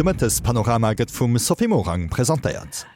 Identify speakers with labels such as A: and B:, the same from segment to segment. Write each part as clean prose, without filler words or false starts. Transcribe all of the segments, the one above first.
A: De Mëttespanorama gëtt vum Sophie Morang presentéiert.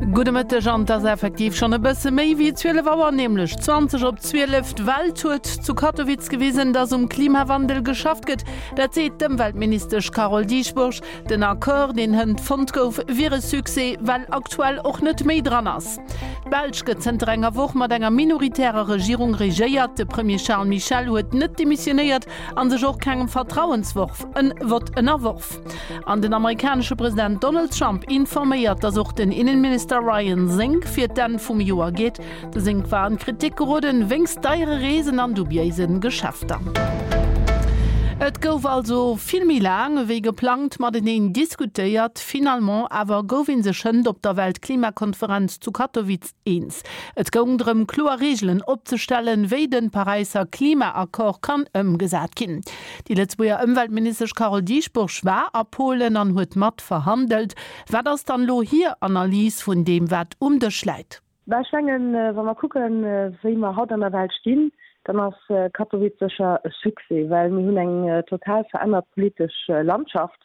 B: Gudde Mëtteg an et ass effektiv schonn e bësse méi wéi 12 Auer, nämlech 20 op 12. D'Welt huet zu Katowice gewisen, datt um Klimawandel geschafft gëtt. Dat seet d'Ëmweltministesch Carole Dieschbourg. Den Accord, deen hënt fonnt gouf, wier e Succès, well aktuell och net méi dran ass. D'Belsch gëtt zënter enger Woch mat enger minoritärer Regierung regéiert. De Premier Charles Michel huet net demissionéiert a sech och kengem Vertrauensworf en Vott ënnerworf. An den amerikanesche President Donald Trump informéiert, datt och den Innenminister Ryan Zinke fir d'Enn vum Joer geet. De Zinke war an d'Kritik geroden wéinst deiere Reesen an dubiéise Geschäfter. Et gouf also vill méi laang ewéi geplangt mateneen diskutéiert. Finalement awer gouf ee sech hënt op der Weltklimakonferenz zu Katowice eens. Et goung drëm, kloer Reegelen opzestellen, wéi de Paräisser Klimaaccord kann ëmgesat ginn. Déi Lëtzebuerger Ëmweltministesch Carole Dieschbourg war a Polen an huet mat verhandelt. Wat ass dann elo hir Analys vun deem, wat um Dësch läit?
C: Bah, ech mengen, wa mer kucken, wéi mer haut an der Welt stinn, dann ass Katowice sécher e Succès, well mir hunn eng total verännert politesch Landschaft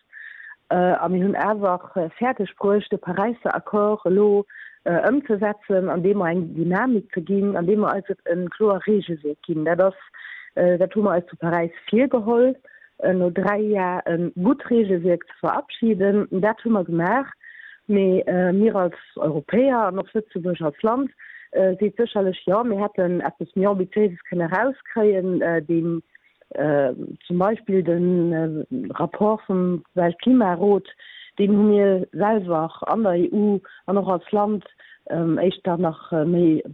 C: a mir hunn awer fäerdeg bruecht, de Paräisser Accord elo ëmzesetzen, andeem mer eng Dynamik ze ginn, andeem mer eis e kloer Regelwierk ginn. Dat ass, dat hu mer eis zu Paräis virgeholl. no 3 Jar e gutt Regelwierk ze verabschieden. Dat hu mer gemaach. Mee mir als Europäer an och Lëtzebuerg als Land seet sécherlech, jo, mir hätten eppes méi Ambitiéises kënne erauskréien, deen zum Beispill de Rapport vum Weltklimarot, deen hu mir selwer an der EU an och als Land éischter nach méi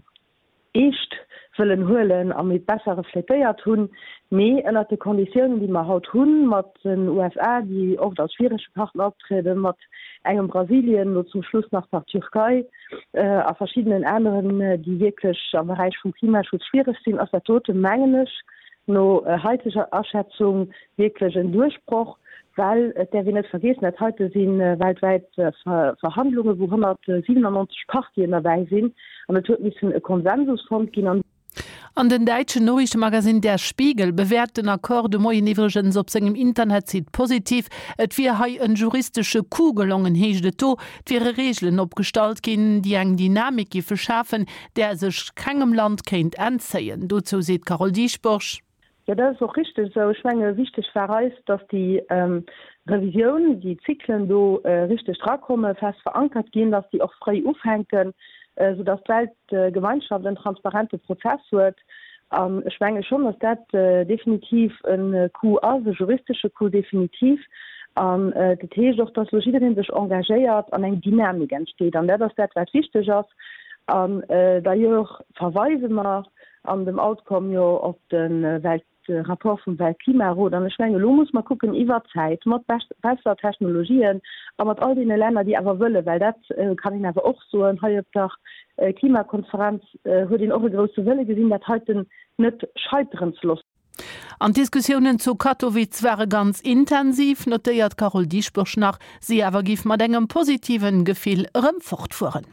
C: eescht wëllen huelen a méi besser reflétéiert hunn, mee ënnert de Konditiounen, déi mer haut hunn, mat den USA, déi oft als schwierege Partner optrieden, mat engem Brasilien, elo zum Schluss nach nach d'Türkei a verschiddenen aneren, déi wierklech am Beräich vum Klimaschutz schwiereg sinn, ass dat dote, mengen ech, no haiteger Aschätzung wierklech en Duerchbroch, well et däerf een net vergeessen, dat heite si weltwäit Verhandlungen, wou 197 Partien derbäi sinn an et huet missen e Konsensus fonnt ginn. An.
B: An den däitschen Noriichtemagasinn Der Spiegel bewäert den Accord de Moien iwwregens op sengem Internetsite positiv. Et wier hei en juristesche Coup gelongen, heescht et do. Et wiere Reegelen opgestallt ginn, déi eng Dynamik giffe schafen, där sech kengem Land kéint entzéien. Dozou seet d'Carole Dieschbourg.
C: Jo, dat ass och richteg esou. Ech menge wichteg war eis, datt déi Revisioun, déi Zyklen do richteg drakommen, fest verankert ginn, datt déi och fréi ufänken, soudatt d'Weltgemeinschaft en transparente Prozess huet. An ech menge schonn, datt dat definitiv e Coup ass, e juristesche Coup definitiv. An dat heescht och, datt elo jidderee sech engagéiert an eng Dynamik entsteet. An dat ass dat, wat wichteg ass. An d'ailleurs verweise mer an dem Outcome jo op de Welt, de Rapport vum Weltklimarot. An ech mengen, elo muss mer kucken iwwert d'Zäit mat besser Technologien a mat all deene Länner, déi awer wëllen, well dat kann een awer och soen, hei op der Klimakonferenz huet een och e grousse Wëlle gesinn, dat heiten net scheiteren ze loossen.
B: An d'Diskussiounen zu Katowice ware ganz intensiv, notéiert d'Carole Dieschbourg nach. Si awer giff mat engem positiven Gefill erëm fortfueren.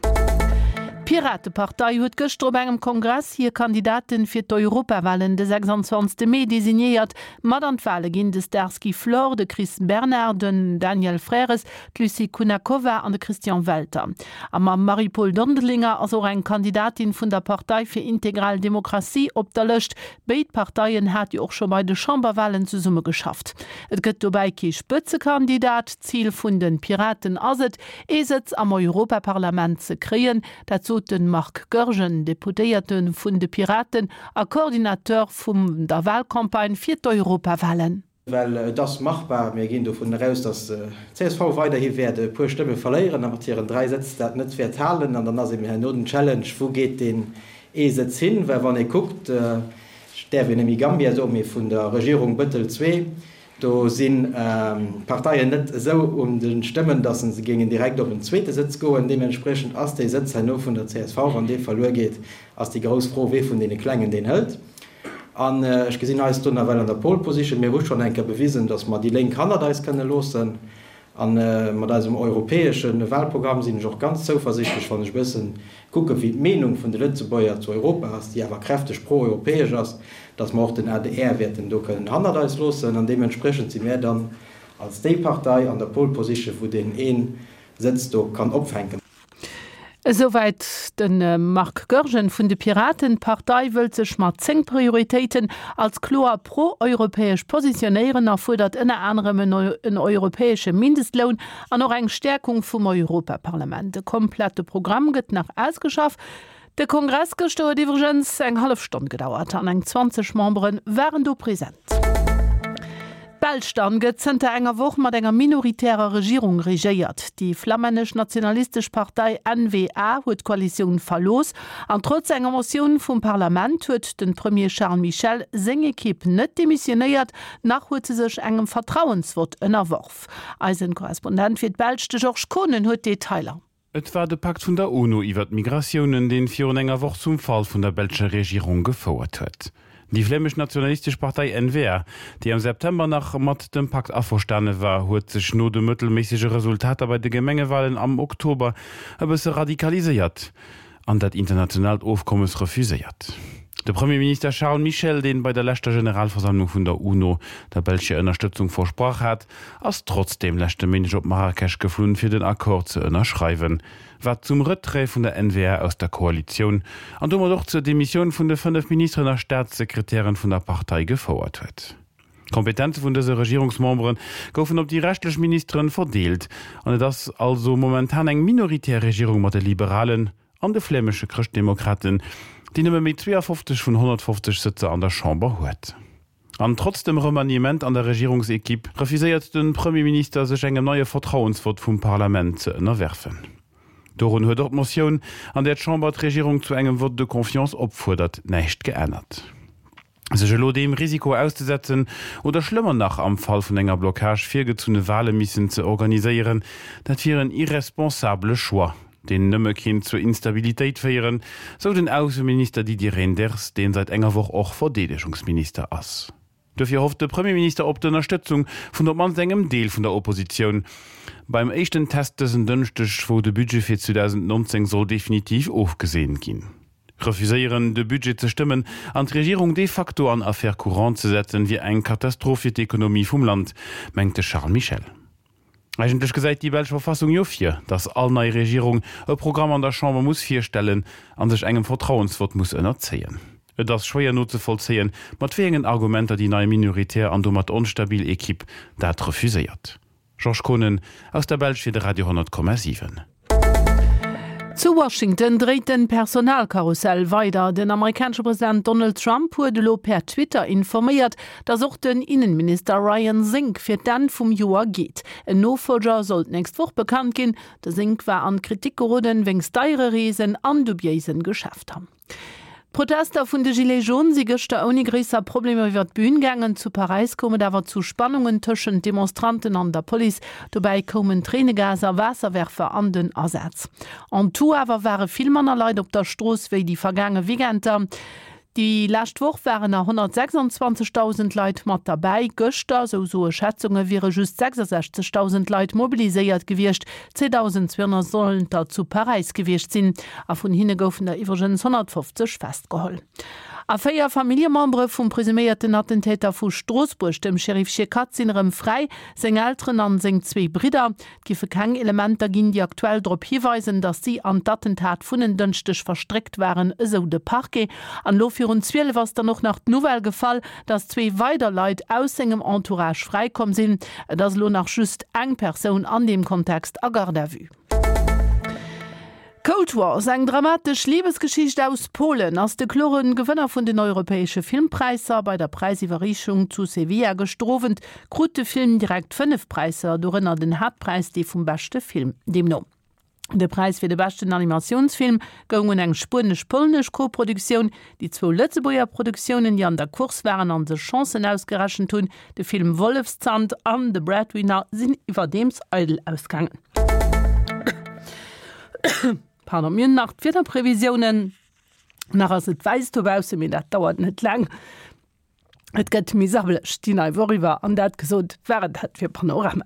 B: D'Piratepartei huet gëschter op engem Kongress hir Kandidaten fir d'Europawalen de 26 Mee designéiert. Mat an d'Wale ginn de Starsky Flor, de Chris Bernard, den Daniel Frères, d'Lucie Kunakova an de Christian Welter. A mam Marie-Paule Dondelinger ass och eng Kandidatin vun der Partei fir integral Demokratie op der Lëscht. Béid Parteien hat jo och scho bei de Chamberwalen zesumme geschafft. Et gëtt dobäi kee Spëtzekandidat. Zil vun de Piraten ass et, ee Sëtz am Europaparlament ze kréien. Dat sot de Marc Goergen, Deputéierte vun de Piraten a Coordinateur vum der Walcampagne fir d'Europawalen.
D: Well et ass machbar. Mir ginn dovun eraus, datt csv weiderhi wäert e puer Stëmme verléieren a mat hiren 3 Sëtz dat net wäert halen. An dann ass eben herno den Challenge, Wou geet deen ee Sëtz hin? Well wann ee kuckt, ech däerf jo net méi Gambia soen, mee vun der Regierung Bëttel ii, do sinn d'Parteien net esou un de Stëmmen, datt se géingen direkt op en zweete Sëtz goen. Deementspriechend ass dee Sëtz herno vun der csv, wann dee verluer geet, ass déi grouss Fro, wee vun deene Klengen deen hëlt. An ech gesinn eis do nawell an der Pole Position. Mir hu schonn eng Kéier bewisen, datt mer déi Lénk hannert eis kënne loossen. A mat eisem europäesche Wahlprogramm sinn ech och ganz zouversichtlech, wann ech e bësse kucken, wéi d'Meenung vun de Lëtzebuerger zu Europa ass, déi awer kräfteg pro-europäesch ass, datt mer och den adr wäerten do kënnen hannert eis loossen. An deementspriechend si mär dann. als déi Partei an der Pole Position, wou deen ee Sëtz do kann opfänken.
B: Esouwäit de Marc Goergen vun de Piraten. D'Partei wëllt sech mat 10 Prioritéiten als kloer pro-europäesch positionéieren a fuerdert ënner anerem en europäesche Mindestloun an och eng Stäerkung vum Europaparlament. De komplette Programm gëtt nach ausgeschafft. De Kongress gëschter huet iwwregens eng hallef Stonn gedauert an eng 20 Membere waren do present. D'Belsch dann gëtt zënter enger Woch mat enger minoritärer Regierung regéiert. Déi flammännesch-nationalistesch Partei N-VA huet d'Koalitioun verlooss an trotz enger Motioun vum Parlament huet den Premier Charles Michel seng Ekipp net demissionéiert, nach huet se sech engem Vertrauensvott ënnerworf. Eisen Korrespondent fir d'Belsch, de Georges Kohnen, huet d'Detailer.
E: Et war de Pakt vun der UNO iwwer d'Migratiounen, deen virun enger Woch zum Fall vun der belscher Regierung gefouert huet. Déi flämesch-nationalistesch Partei N-VA, déi am September nach mat dem Pakt averstane war, huet sech no de mëttelméissege Resultater bei de Gemengewalen am Oktober e bësse radikaliséiert an dat internationaalt Ofkommes refuséiert. De Premierminister Charles Michel, deen bei der leschter Generalversammlung vun der UNO der Belsch hir Ënnerstëtzung versprach hat, ass trotzdeem leschte Méindeg op Marrakesch geflunn, fir den Accord ze ënnerschreiwen, wat zum Retrait vun der N-VA aus der Koalitioun an domat och zur Demissioun vun de 5 Ministeren a Staatssekretären vun der Partei gefouert huet. D'Kompetenze vun dëse Regierungsmembere goufen op déi reschtlech Ministeren verdeelt an et ass also momentan eng minoritär Regierung mat de Liberalen an de flämesche Chrëschtdemokraten, déi nëmme méi 52 vun 150 Sëtzer an der Chamber huet. An trotz dem Remaniement an der Regierungsequipe refuséiert de Premierminister sech engem neie Vertrauensvott vum Parlament ze ënnerwerfen. Dorun huet och d'Motioun, an där d'Chamber d'Regierung zu engem Vote de confiance opfuerdert, näischt geännert. Sech elo deem Risiko auszesetzen oder schlëmmer nach am Fall vun enger Blockage virgezunne Wale missen ze organiséieren, dat wier en irresponsabele Choix, deen nëmme kéint zur Instabilitéit féieren, sou den Ausseminister Didier Reynders, deen säit enger Woch och Verdeedegungsminister ass. Dofir hofft de Premierminister op d'Ënnerstëtzung vun op d'mannst engem Deel vun der Oppositioun beim éischten Test dësen Dënschdeg, wou de Budget fir 2019 soll definitiv ofgeseent ginn. Refuséieren, de Budget ze stëmmen an d'Regierung de facto an Affaires courantes ze setzen, wier eng Katastroph fir d'Ekonomie vum Land, mengt de Charles Michel. Eigentlech gesäit déi belsch Verfassung jo vir, datt all nei Regierung e Programm an der Chamber muss virstellen a sech engem Vertrauensvott muss ënnerzéien. Et ass schwéier nozevollzéien, mat wéi engen Argumenter déi nei minoritär an domat onstabil Equipe dat refuséiert. Georges Kohnen aus der Belsch fir de Radio 10,7.
B: Zu Washington dréit den Personalkarussell weider. Den amerikanesche President Donald Trump huet elo per Twitter informéiert, datt och den Innenminister Ryan Zinke fir d'Enn vum Joer geet. En Nofollger soll d'nächst Woch bekannt ginn. De Zinke war an d'Kritik geroden wéinst deiere Reesen an dubiéisen Geschäfter. D'Protester vun de Gilets jaunes si gëschter ouni gréisser Problemer iwwer d'Bün gaangen. Zu Paräis koum et awer zu Spannungen tëschent Demonstranten an der Police. Dobäi koumen Tréinegas a Waasserwerfer an den Asaz. En tout awer ware vill manner Leit op der Strooss wéi déi vergaange Weekender. Déi lescht Woch waren der 126.000 Leit mat derbäi. Gëschter, sou soe Schätzunge, wiere just 66.000 Leit mobiliséiert gewiescht. 2.200 sollen der zu Paräis gewiescht sinn, a vun hinne goufen der iwwregens 150 festgeholl. A 4 Familljemembere vum presuméierten Attentäter vu Stroossbuerg, dem Chérif Chekatt, sinn erëm fräi, seng Elteren an seng zwee Bridder. Et giffe keng Elementer ginn, déi aktuell drop hiweisen, datt si an d'Attentat vun en Dënschdeg verstréckt waren, esou de Parquet. An elo virun 12 ass dann och nach d'Nouvelle gefall, dass zwee weider Leit aus sengem Entourage fräikomm sinn. Et ass elo nach just eng Persoun an deem Kontext a Garde à vue. Cold Wars, eng dramatesch Libesgeschicht aus Polen, ass de klore Gewënner vun den europäesche Filmpräisser. Bei der Präisiwwerreechung zu Sevilla gëschter Owend krut de Film direkt 5 Präisser, dorënner den Haaptpräis, dee vum beschte Film. Deemno. De Präis fir de beschten Animatiounsfilm goung un eng spuenesch-polnesch Koproduktioun. Déi zwou Lëtzebuerger Produktiounen, déi an der Course waren a sech Chancen ausgerechent hunn, de Film Wollefszand an The Breadwinner, sinn iwwerdeems eidel ausgaangen. Pardon, mir hunn nach d'Wiederprevisiounen. Nach ass et wäiss dobaussen, mee dat dauert net laang. Et gëtt méi sabbeleg déi nei Woch iwwer. An dat gesot, war et dat fir Panorama.